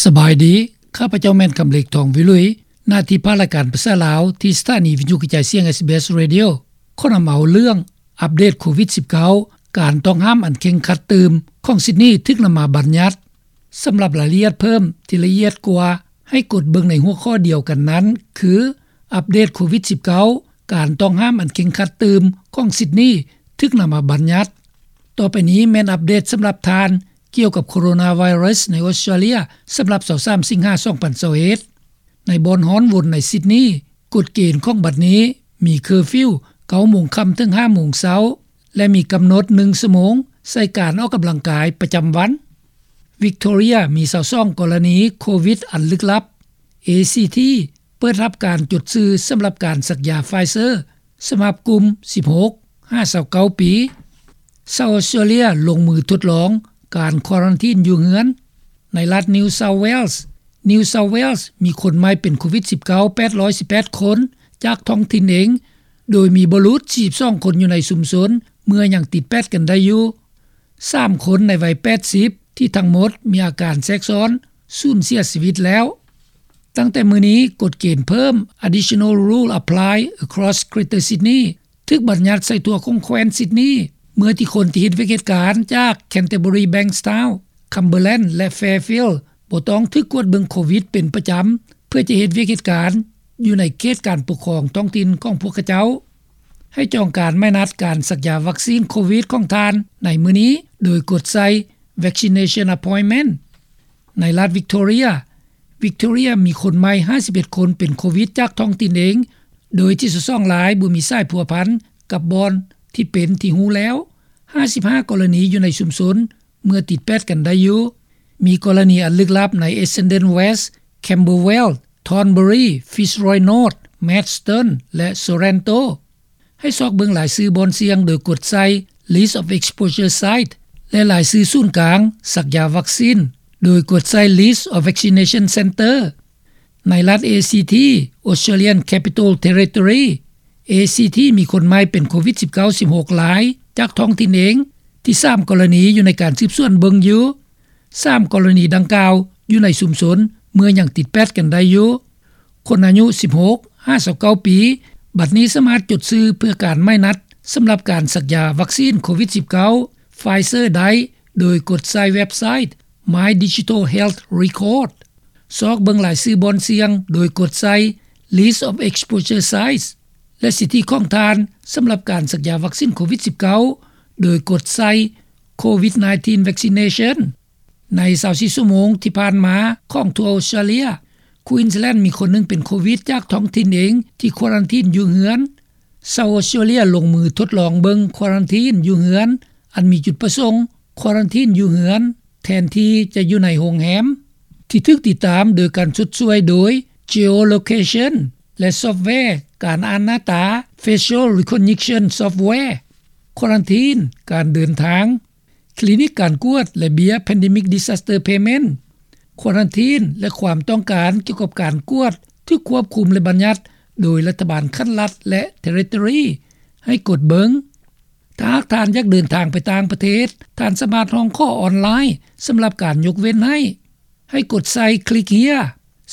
ສະບາຍດີ, ຂ້າພະເຈົ້າແມ່ນ ຄຳເລັກ ທອງວິລຸຍ, ໜ້າທີ່ພາກລາຍການພາສາລາວ ທີ່ສະຖານີວິທະຍຸກະຈາຍສຽງ ເອສບີເອສ Radio ຂໍນຳເອົາເລື່ອງອັບເດດໂຄວິດສິບເກົ້າ ການຕ້ອງຫ້າມອັນເຄັ່ງຄັດຕື່ມຂອງຊິດນີ ຖືກນຳມາບັນຍັດ. ສຳລັບລາຍລະອຽດເພີ່ມທີ່ລະອຽດກວ່າ ໃຫ້ກົດເບິ່ງໃນຫົວຂໍ້ດຽວກັນນັ້ນ ຄື ອັບເດດໂຄວິດສິບເກົ້າ ການຕ້ອງຫ້າມອັນເຄັ່ງຄັດຕື່ມຂອງຊິດນີ ຖືກນຳມາບັນຍັດ. ຕໍ່ໄປນີ້ແມ່ນອັບເດດສຳລັບທ່ານ ກ່ຽວກັບໂຄໂຣນາໄວຣັສໃນອົດສະຕຣາເລຍ ສຳລັບຊາວສາມສິງຫາ ສອງພັນຊາວເອັດ. ໃນບ່ອນຮ້ອນວົນໃນຊິດນີ ກົດເກນຂອງບັດນີ້ມີເຄີຟິວ ເກົ້າໂມງຄ່ຳເຖິງຫ້າໂມງເຊົ້າ ແລະ ມີກຳນົດໜຶ່ງຊົ່ວໂມງໃສ່ການອອກກຳລັງກາຍປະຈຳວັນ. ວິກໂທເຣຍມີຊາວສອງກໍລະນີໂຄວິດອັນລຶກລັບ. ເອຊີທີ ເປີດຮັບການຈົດຊື່ສຳລັບການສັກຢາໄຟເຊີ ສຳລັບກຸ່ມສິບຫົກຫາຊາວເກົ້າປີ. ຊາວອົດສະຕຣາເລຍລົງມືທົດລອງການຄວາຣັນທີນຢູ່ເຮືອນ. ໃນລັດ New South Wales, New South Wales ມີຄົນໃໝ່ເປັນໂຄວິດສິບເກົ້າ ແປດຮ້ອຍສິບແປດຄົນ ຈາກທ້ອງຖິ່ນເອງ, ໂດຍມີບໍ່ຫຼຸດສີ່ສິບສອງຄົນຢູ່ໃນຊຸມຊົນ ເມື່ອຍັງຕິດແປດກັນໄດ້ຢູ່. ສາມຄົນໃນໄວແປດສິບ ທີ່ທັງໝົດມີອາການແຊກຊ້ອນ ສູນເສຍຊີວິດແລ້ວ. ຕັ້ງແຕ່ມື້ນີ້, ກົດເກນເພີ່ມ Additional Rule Apply Across Greater Sydney ຖືກບັນຍັດໃສ່ທົ່ວຂອງແຄວ້ນຊິດນີ ເມື່ອທີ່ຄົນທີ່ເຮັດວຽກເຮັດການຈາກ Canterbury, Bankstown, Cumberland ແລະ Fairfield ບໍ່ຕ້ອງຖືກກວດເບິ່ງໂຄວິດເປັນປະຈຳ ເພື່ອຈະເຮັດວຽກເຮັດການຢູ່ໃນເຂດການປົກຄອງທ້ອງຖິ່ນຂອງພວກເຂົາເຈົ້າ. ໃຫ້ຈອງການໝາຍນັດການສັກຢາວັກຊີນໂຄວິດຂອງທ່ານໃນມື້ນີ້ ໂດຍກົດໃສ່ Vaccination Appointment. ໃນລັດ Victoria, Victoria ມີຄົນໃໝ່ຫ້າສິບເອັດຄົນເປັນໂຄວິດຈາກທ້ອງຖິ່ນເອງ, ໂດຍທີ່ຊາວສອງລາຍບໍ່ມີສາຍພົວພັນກັບບ່ອນທີ່ເປັນທີ່ຮູ້ແລ້ວ. ຫ້າສິບຫ້າກໍລະນີຢູ່ໃນຊຸມຊົນ ເມື່ອຕິດແປດກັນໄດ້ຢູ່. ມີກໍລະນີອັນລຶກລັບໃນ Essendon West, Camberwell, Thornbury, Fitzroy North, Maidstone ແລະ Sorrento. ໃຫ້ຊອກເບິ່ງລາຍຊື່ບ່ອນສ່ຽງໂດຍກົດໃສ່ List of Exposure Site ແລະ ລາຍຊື່ສູນກາງສັກຢາວັກຊີນ ໂດຍກົດໃສ່ List of Vaccination Centre. ໃນລັດ ເອຊີທີ Australian Capital Territory, ເອຊີທີ ມີຄົນໃໝ່ເປັນໂຄວິດສິບເກົ້າ ສິບຫົກລາຍ ຈາກທ້ອງຖິ່ນເອງ, ທີ່ສາມກໍລະນີຢູ່ໃນການສືບສວນເບິ່ງຢູ່. ສາມກໍລະນີດັ່ງກ່າວຢູ່ໃນຊຸມຊົນ ເມື່ອຍັງຕິດແປດກັນໄດ້ຢູ່. ຄົນອາຍຸສິບຫົກຫາຊາວເກົ້າປີ ບັດນີ້ສາມາດຈົດຊື່ເພື່ອການໝາຍນັດສຳລັບການສັກຢາວັກຊີນໂຄວິດສິບເກົ້າ Pfizer ໄດ້ ໂດຍກົດໃສ່ເວັບໄຊ My Digital Health Record. ຊອກເບິ່ງລາຍຊື່ບ່ອນສ່ຽງໂດຍກົດໃສ່ List of Exposure Sites ແລະ ສິດທິຂອງທ່ານສຳລັບການສັກຢາວັກຊີນໂຄວິດສິບເກົ້າ ໂດຍກົດໃສ່ COVID nineteen Vaccination. ໃນຊາວສີ່ຊົ່ວໂມງທີ່ຜ່ານມາຂອງທົ່ວອົດສະຕຣາເລຍ, Queensland ມີຄົນໜຶ່ງເປັນໂຄວິດຈາກທ້ອງຖິ່ນເອງທີ່ຄວາຣັນທີນຢູ່ເຮືອນ. ຊາວອົດສະຕຣາເລຍລົງມືທົດລອງເບິ່ງຄວາຣັນທີນຢູ່ເຮືອນ ອັນມີຈຸດປະສົງຄວາຣັນທີນຢູ່ເຮືອນ ແທນທີ່ຈະຢູ່ໃນໂຮງແຮມ ທີ່ຖືກຕິດຕາມໂດຍການຊົດຊ່ວຍໂດຍ Geolocation ແລະ ຊອບແວການອ່ານໜ້າຕາ Facial Recognition Software. ຄວາຣັນທີນ, ການເດີນທາງ, ຄລີນິກການກວດ ແລະ ເບ້ຍ Pandemic Disaster Payment. ຄວາຣັນທີນ ແລະ ຄວາມຕ້ອງການກ່ຽວກັບການກວດຖືກຄວບຄຸມ ແລະ ບັນຍັດໂດຍລັດຖະບານຂັ້ນລັດ ແລະ Territory ໃຫ້ກົດເບິ່ງ. ຖ້າຫາກທ່ານຢາກເດີນທາງໄປຕ່າງປະເທດ, ທ່ານສາມາດຮ້ອງຂໍອອນລາຍສຳລັບການຍົກເວັ້ນໃຫ້. ໃຫ້ກົດໃສ່ Click Here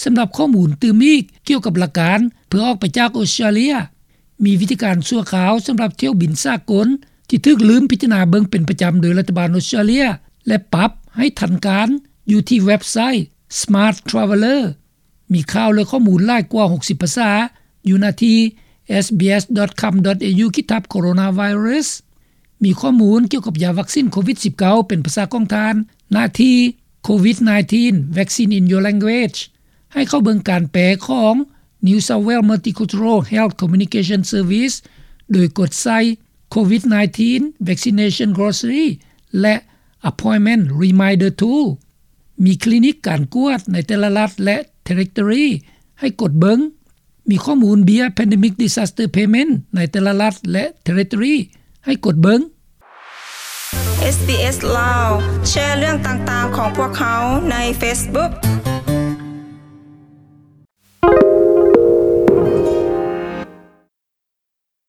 ສຳລັບຂໍ້ມູນຕື່ມອີກກ່ຽວກັບຫຼັກການເພື່ອອອກໄປຈາກອົດສະຕຣາເລຍ. ມີວິທີການຊົ່ວຄາວສຳລັບຖ້ຽວບິນສາກົນທີ່ຖືກລືມພິຈາລະນາເບິ່ງເປັນປະຈຳໂດຍລັດຖະບານອົດສະຕຣາເລຍ ແລະ ປັບໃຫ້ທັນການຢູ່ທີ່ເວັບໄຊ Smart Traveller. ມີຂ່າວ ແລະ ຂໍ້ມູນຫຼາຍກວ່າຫົກສິບພາສາຢູ່ໜ້າທີ່ SBS dot com dot AU ຂີດທັບ Coronavirus. ມີຂໍ້ມູນກ່ຽວກັບຢາວັກຊີນໂຄວິດສິບເກົ້າເປັນພາສາຂອງທ່ານ ໜ້າທີ່ COVID nineteen Vaccine in Your Language. ໃຫ້ເຂົ້າເບິ່ງການແປຂອງ New South Wales Multicultural Health Communication Service ໂດຍກົດໃສ່ COVID nineteen Vaccination Glossary ແລະ Appointment Reminder Tool. ມີຄລີນິກການກວດໃນແຕ່ລະລັດ ແລະ Territory ໃຫ້ກົດເບິ່ງ. ມີຂໍ້ມູນເບ້ຍ Pandemic Disaster Payment ໃນແຕ່ລະລັດ ແລະ Territory ໃຫ້ກົດເບິ່ງ. ເອສບີເອສ ລາວ ແຊເລື່ອງຕ່າງໆຂອງພວກເຮົາໃນ Facebook.